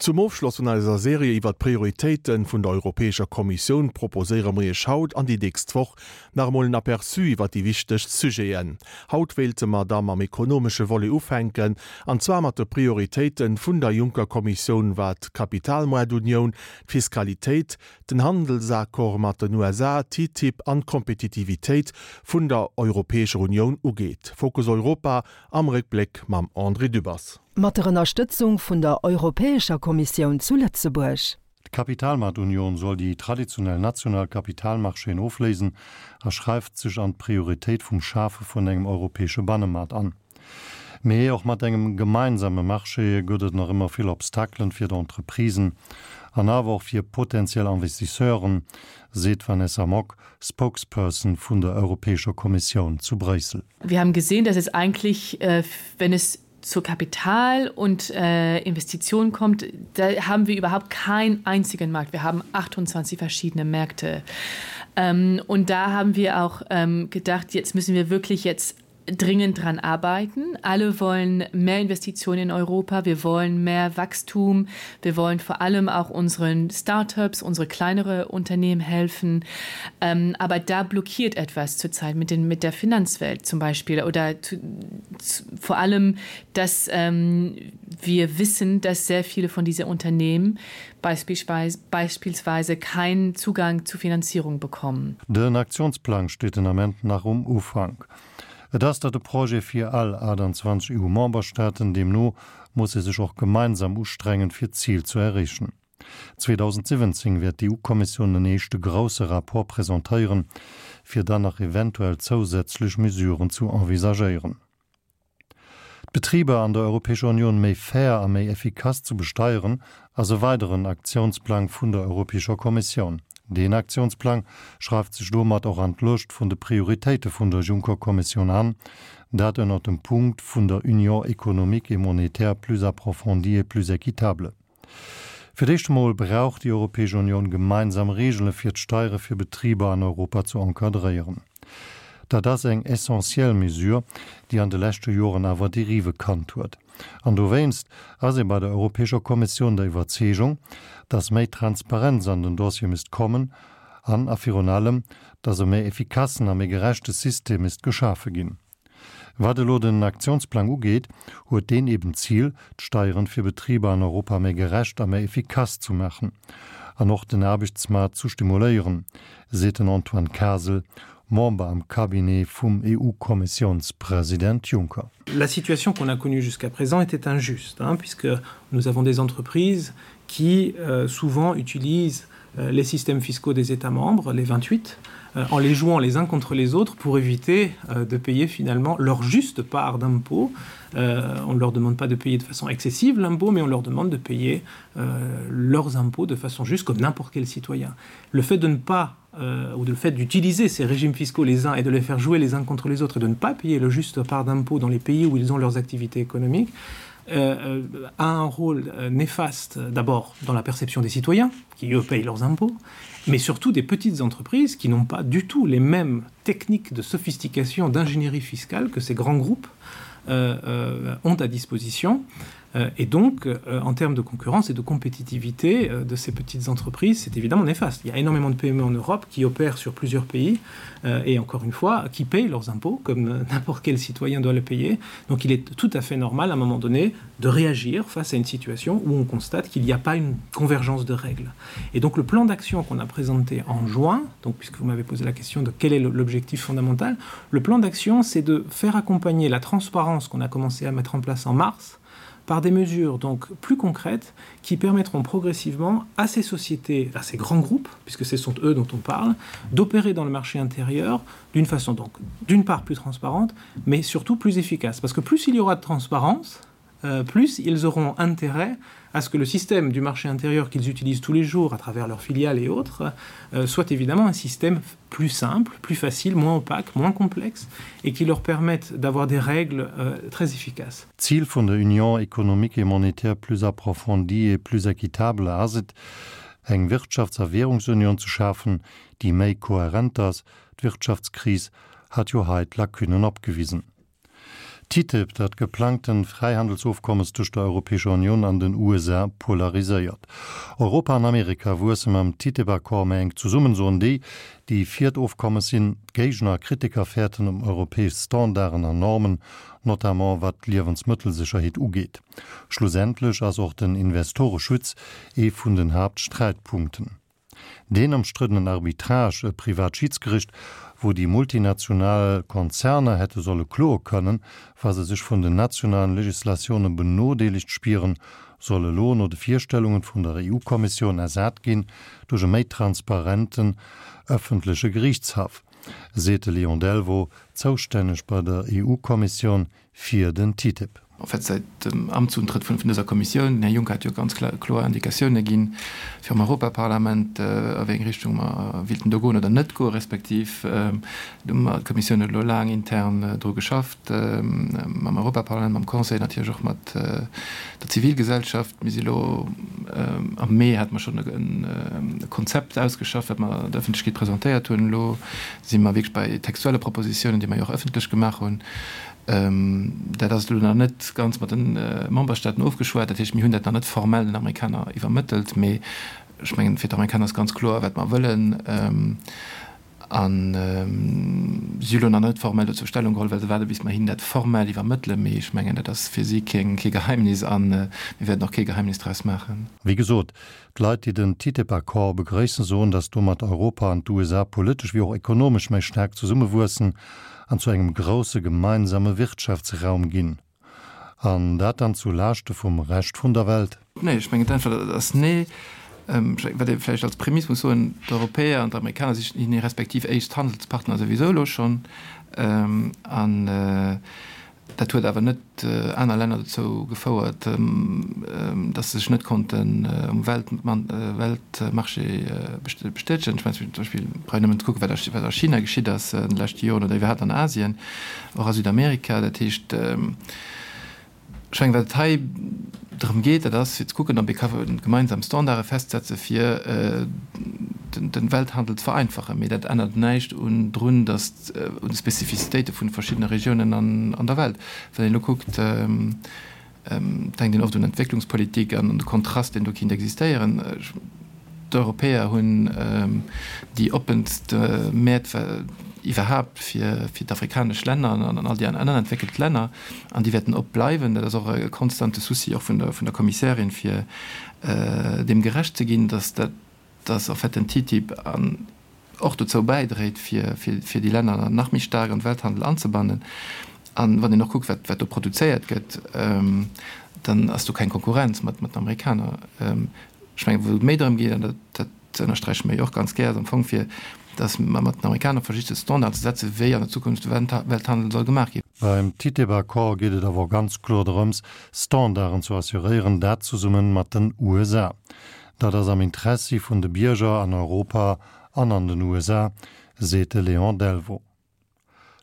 Zum Ofschloss vun eiser Serie iwwer d'Prioritéite vun der Europäescher Kommissioun proposéiere mer Iech haut an déi nächst Woch nach emol en Aperçu iwwer déi wichtegst Sujeten. Haut wéilte mer da mam ekonomesche Volet ufänken, an zwar mat de Prioritéite vun der Juncker-Kommissioun wat d'Kapitalmoartunioun, d'Fiskalitéit, den Handelsaccord mat den USA, TTIP an d'Kompetitivitéit vun der Europäescher Unioun ugeet. Fokus Europa am Réckbléck mam André Dübbers. Mat der Ënnerstëtzung vun der Europäescher Kommissioun zu Lëtzebuerg. D'Kapitalmaartunion soll déi traditionell national Kapitalmarchéen ofléisen a schreift sech an d'Prioritéit vum Schafe vun engem europäesche Bannemaart an. Mee och mat engem gemeinsame Marché gëtt et nach ëmmer vill Obstakelen fir d'Entreprisen an awer och fir potentiell Investisseuren, seet d'Vanessa Mock, Spokesperson vun der Europäescher Kommissioun zu Bréissel. Wir haben gesehen, dass es eigentlich, wenn es zu Kapital und Investitionen kommt, da haben wir überhaupt keinen einzigen Markt. Wir haben 28 verschiedene Märkte. Und da haben wir auch gedacht, jetzt müssen wir wirklich jetzt dringend daran arbeiten. Alle wollen mehr Investitionen in Europa, wir wollen mehr Wachstum, wir wollen vor allem auch unseren Startups, unsere kleinere Unternehmen helfen. Ähm, aber da blockiert etwas zurzeit mit, den, mit der Finanzwelt zum Beispiel oder zu, zu, vor allem, dass ähm, wir wissen, dass sehr viele von diesen Unternehmen beispielsweise, beispielsweise keinen Zugang zu Finanzierung bekommen. Den Aktionsplan steht den Ament nach um Ufank. Et ass dat e Projet fir all 28 EU-Memberstaaten, deemno muss ee sech och gemeinsam ustrengen, fir d'Zil zu erreechen. 2017 wäert d'EU-Kommissioun en éischte grousse Rapport presentéieren, fir dann nach eventuell zousätzlech Mesuren zu envisagéieren. D'Betriber an der Europäescher Union méi fair a méi effikass zu besteieren, ass e weideren Aktiounsplang vun der Europäescher Kommissioun. Deen Aktiounsplang schreift sech domat och an d'Lëscht vun de Prioritéite vun der Juncker-Kommissioun an, dat ënnert dem Punkt vun der Union économique et monétaire plus approfondie et plus équitable. Fir d'éischt emol brauch déi Europäesch Unioun gemeinsam Reegele fir d'Steiere fir Betriber an Europa zu encadréieren. Dat ass eng essentiell Mesure, déi an de leschte Joren awer Derive kannt huet. An dowéinst ass ee bei der Europäescher Kommissioun der Iwwerzeegung, datt méi Transparenz an den Dossier misst kommen an a virun allem, datt e méi effikassen a méi gerechte System misst geschafe ginn. Wat elo den Aktiounsplang ugeet, huet deen eben d'Zil, d'Steieren fir Betriber an Europa méi gerecht a méi efficace zu maachen an och den Aarbechtsmaart zu stimuléieren, seet den Antoine Kasel, Member am Cabinet vum EU-Kommissiounspresident Juncker. La situation qu'on a connue jusqu'à présent était injuste, hein, puisque nous avons des entreprises qui euh, souvent utilisent euh, les systèmes fiscaux des États membres, les 28, euh, en les jouant les uns contre les autres pour éviter euh, de payer finalement leur juste part d'impôt. Euh, on ne leur demande pas de payer de façon excessive l'impôt, mais on leur demande de payer euh, leurs impôts de façon juste comme n'importe quel citoyen. Le fait de ne pas euh, ou de le fait d'utiliser ces régimes fiscaux les uns et de les faire jouer les uns contre les autres et de ne pas payer le juste part d'impôt dans les pays où ils ont leurs activités économiques, euh, euh, a un rôle euh, néfaste d'abord dans la perception des citoyens qui eux payent leurs impôts, mais surtout des petites entreprises qui n'ont pas du tout les mêmes techniques de sophistication d'ingénierie fiscale que ces grands groupes euh, euh, ont à disposition. Euh, et donc, euh, en termes de concurrence et de compétitivité euh, de ces petites entreprises, c'est évidemment néfaste. Il y a énormément de PME en Europe qui opèrent sur plusieurs pays euh, et encore une fois, qui payent leurs impôts comme euh, n'importe quel citoyen doit le payer. Donc il est tout à fait normal à un moment donné de réagir face à une situation où on constate qu'il n'y a pas une convergence de règles. Et donc le plan d'action qu'on a présenté en juin, donc puisque vous m'avez posé la question de quel est l'objectif fondamental, le plan d'action c'est de faire accompagner la transparence qu'on a commencé à mettre en place en mars, par des mesures donc plus concrètes qui permettront progressivement à ces sociétés, à ces grands groupes, puisque ce sont eux dont on parle, d'opérer dans le marché intérieur d'une façon donc d'une part plus transparente, mais surtout plus efficace. Parce que plus il y aura de transparence, euh, plus ils auront intérêt à ce que le système du marché intérieur qu'ils utilisent tous les jours à travers leurs filiales et autres euh, soit évidemment un système plus simple, plus facile, moins opaque, moins complexe et qui leur permette d'avoir des règles euh, très efficaces. D'Zil vun der Union économique et monétaire plus approfondie et plus équitable ass et, eng Wirtschafts a Währungsunion ze schafen, déi méi kohärent ass. D'Wirtschaftskris hat jo hei d'Lacunen opgewisen. TTIP, dat geplangten Fräihandelsofkommes tëscht der Europäescher Unioun an den USA, polariséiert. Europa an Amerika wuesse mam TTIP-Accord méi enk zesummen, soen déi, déi fir d'Ofkommes sinn. D'Géigner a Kritiker fäerten ëm europäesch Standarden an Normen, notamment wat d'Liewensmëttelsécherheet ugeet. Schlussendlech ass och den Investoreschutz ee vun den Haaptsträitpunkten. Deen ëmstriddenen Arbitrage, e privat Schidsgericht, wou déi multinational Konzerner hätte solle kloe kënnen, wa se sech vun den nationalen Legislatioune benodeelegt spieren, soll elo no de Virstellungen vun der EU-Kommissioun ersat ginn duerch e méi transparenten ëffentleche Geriichtshaff, seet de Léon Delvaux, zoustänneg bei der EU-Kommissioun fir den TTIP. En fait, säit dem Amtsuntrëtt vun dëser Kommissioun, den Här Juncker hat jo ganz kloer Indikatioune ginn virum Europaparlament, a wéi eng Richtung mer wéilten do goen oder net goen, respektiv do hu mer, d'Kommissioun huet elo laang intern dru geschafft, mam Europaparlament, mam Conseil, natierlech och mat der Zivilgesellschaft. Mir si elo, am Mee hate mer schonn e Konzept ausgeschafft, wat mer der Ëffentlechkeet presentéiert hunn. Elo si mer wierklech bei textuelle Propositiounen, déi mer jo och ëffentlech gemaach hunn. Dat ass elo nach net ganz mat de Memberstaaten ofgeschwat. Dat heescht, mir hunn dat nach net formell den Amerikaner iwwermëttelt. Mee ech mengen, fir d'Amerikaner ass ganz kloer, wat mer wëllen. A si hu elo nach net formell dozou Stellung geholl, well se waarde bis mer hinnen dat formell iwwermëttelen. Mee ech mengen, dat ass fir si kee Geheimnis a mir wäerten och kee Geheimnis draus maachen. Wéi gesot, D'Leit, déi den TTIP-Accord begrëissen, soen, datt domat Europa an d'USA politesch wéi och ekonomesch méi staark zesummewuessen an zu engem grousse gemeinsame Wirtschaftsraum ginn. An dat dann zu Laaschte vum Rescht vun der Welt? Nee, ech mengen d'Äntwert ass nee. Wat ee vläicht als Prämiss muss soen, D'Europäer an d'Amerikaner si hir respektiv éischt Handelspartner souwisou elo schonn. An Dat huet awer net aner Länner dozou gefouert, datt se sech net konnten um Weltmarché bestätegen. Ech mengen zum Beispill, brauch een nëmmen ze kucken, wat a China geschitt ass an de leschte Joren oder iwwerhaapt an Asien, och a Südamerika. Dat heescht, ech mengen, wat et hei drëm geet, dat ass fir ze kucken, ob ee ka gemeinsam Standarde festsetze fir de Welthandel ze vereinfachen. Mee dat ännert näischt un drun, datt un de Spezifizitéite vun de verschiddene Regiounen an der Welt. Wann een elo kuckt, denkt een oft un Entwécklungspolitik an un de Kontrast, deen do kinnt existéieren. D'Europäer hunn déi oppenst Mäert iwwerhaapt fir d'afrikanesch Länner an all déi aner entwéckelt Länner, an déi wäerten op bleiwen. Dat ass och e konstante Souci och vun der Kommissärin, fir deem gerecht ze ginn, datt dat, dass en fait den TTIP an och dozou bäidréit, fir fir déi Länner nach méi staark an de Welthandel anzebannen. An wann een och kuckt, wat wat do produzéiert gëtt, dann ass do keng Konkurrenz mat mat den Amerikaner. Ech mengen, wou et méi drëm geet, an dat dat ënnersträiche mer jo och ganz gär, ass am Fong fir dass mer mat den Amerikaner versicht de Standard ze setzen, wéi an der Zukunft de Welthandel soll gemaach ginn. Beim TTIP-Accord geet et awer och ganz kloer drëms, Standarden zu assuréieren, dat zesumme mat den USA. Dat ass am Interessi vun de Bierger an Europa an an den USA, seet de Léon Delvaux.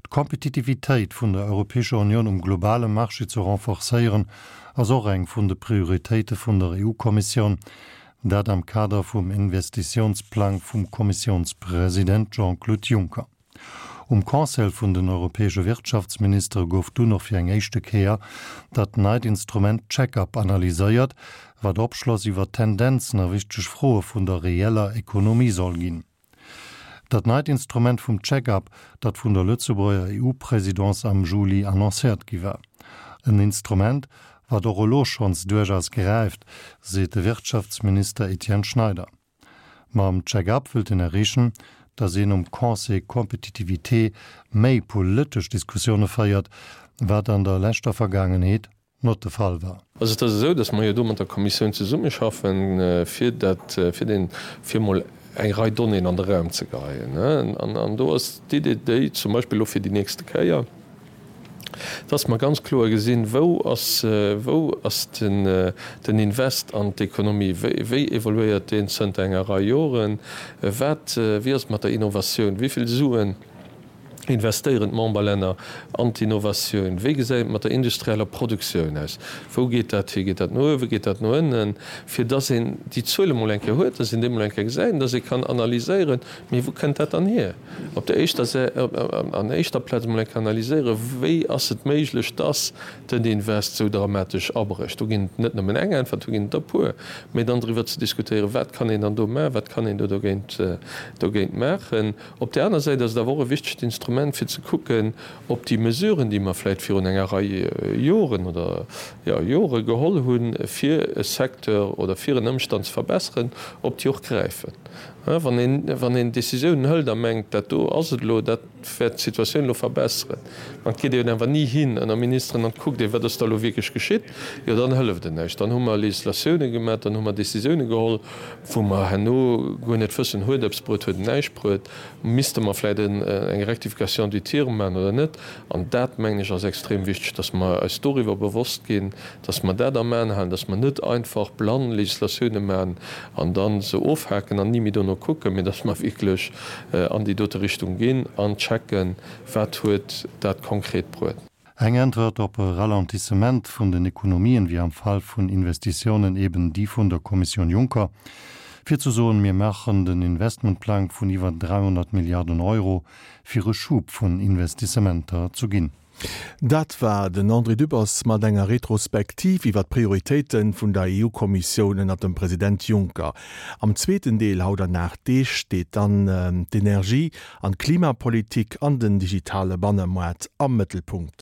D'Kompetitivitéit vun der Europäescher Unioun um globale Marché ze renforcéieren, ass och eng vun de Prioritéite vun der EU-Kommissioun, dat am Kader vum Investitiounsplang vum Kommissiounspresident Jean-Claude Juncker. Um Conseil vun den europäesche Wirtschaftsministere gouf dunn och fir eng éischte Kéier dat neit Instrument Check-up analyséiert, wat Opschloss iwwer Tendenzen a wichteg Froe vun der reeller Ekonomie soll ginn. Dat neit Instrument vum Check-up, dat vun der Lëtzebuerger EU-Présidence am Juli annoncéiert gi war. En Instrument, wat och elo schonns duerchaus gräift, seet de Wirtschaftsminister Etienne Schneider. Mam Check-up wëllt een erreechen, datt een um Conseil Compétitivité méi politesch Diskussioune féiert, wat an der leschter Vergaangenheet not de Fall war. Also et ass esou, datt mer jo do mat der Kommissioun zesummeschaffen, fir dat, fir deen, fir emol eng Rei Donnéeën an de Raum ze geheien. An do ass d'Idee déi, zum Beispill elo fir déi nächste Kéier, dass mer ganz kloer gesinn, wou ass, wou ass den, den Invest an d'Ekonomie, wéi, wéi evoluéiert deen zënter enger Rei Joren, wat, wéi ass et mat der Innovatioun, wéi vill Suen. Investéieren d'Memberlänner an d'Innovatioun? Wéi gesäit et mat der industrieller Produktioun aus? Wou geet dat hi? Geet dat no uewen? Geet dat no ënnen? Fir dass een déi Zuele mol eng Kéier huet, dass een déi mol eng Kéier gesäit an dass ee kann analyséieren, mee wou kënnt dat dann hier? Op der éischter Sä, an éischter Plaz mol eng Kéier analyséieren, wéi ass et méiglech, dass den Invest esou dramatesch abrécht? Do ginn et net nëmmen eng Äntwert, do ginn et der e puer. Mee dann driwwer ze diskutéieren, wat kann een dann do maachen, wat kann een do dogéint, dogéint maachen? Op där aner Säit ass et awer och e wichtegt Instrument, fir ze kucken, ob déi Mesuren, déi mer vläicht virun enger Rei Joren oder, jo, Jore geholl hunn, fir e Secteur oder fir en Ëmstand ze verbesseren, ob déi och gräifen. Wann een, wann een Décisiounen hëlt a mengt, dat do ass et elo, dat wäert d'Situatioun elo verbesseren, an et geet een awer ni hin ënner Ministeren an et kuckt een, wat ass da elo wierklech geschitt, jo dann hëlleft et näischt. Dann hu mer Législatiounen gemaach, dann hu mer Décisiounen geholl, wou mer herno guer net wëssen, huet eppes bruet, huet et näischt bruet, misste mer vläicht eng Rectification du tir maachen oder net. An dat, mengen ech, ass extrem wichteg, dass mer eis doriwwer bewosst ginn, dass mer dat am Aen halen, dass mer net einfach blann Législatioune maachen an da se ofhaken an ni méi dono kucken, mee dass mer wierklech an déi dote Richtung ginn an checken, wat huet dat konkret bruet. Eng Äntwert op e Ralentissement vun den Ekonomien wier am Fall vun Investitiounen eben déi vun der Kommissioun Juncker, fir ze soen, mir maachen den Investmentplang vun iwwer 300 Milliarden Euro, fir e Schub vun Investissementer zu ginn. Dat war den André Dübbers mat enger Retrospektiv iwwer d'Prioritéite vun der EU-Kommissioun ënner dem President Juncker. Am zweeten Deel haut an 8 Deeg steet dann d'Energie an d'Klimapolitik an den digitale Bannemoart am Mëttelpunkt.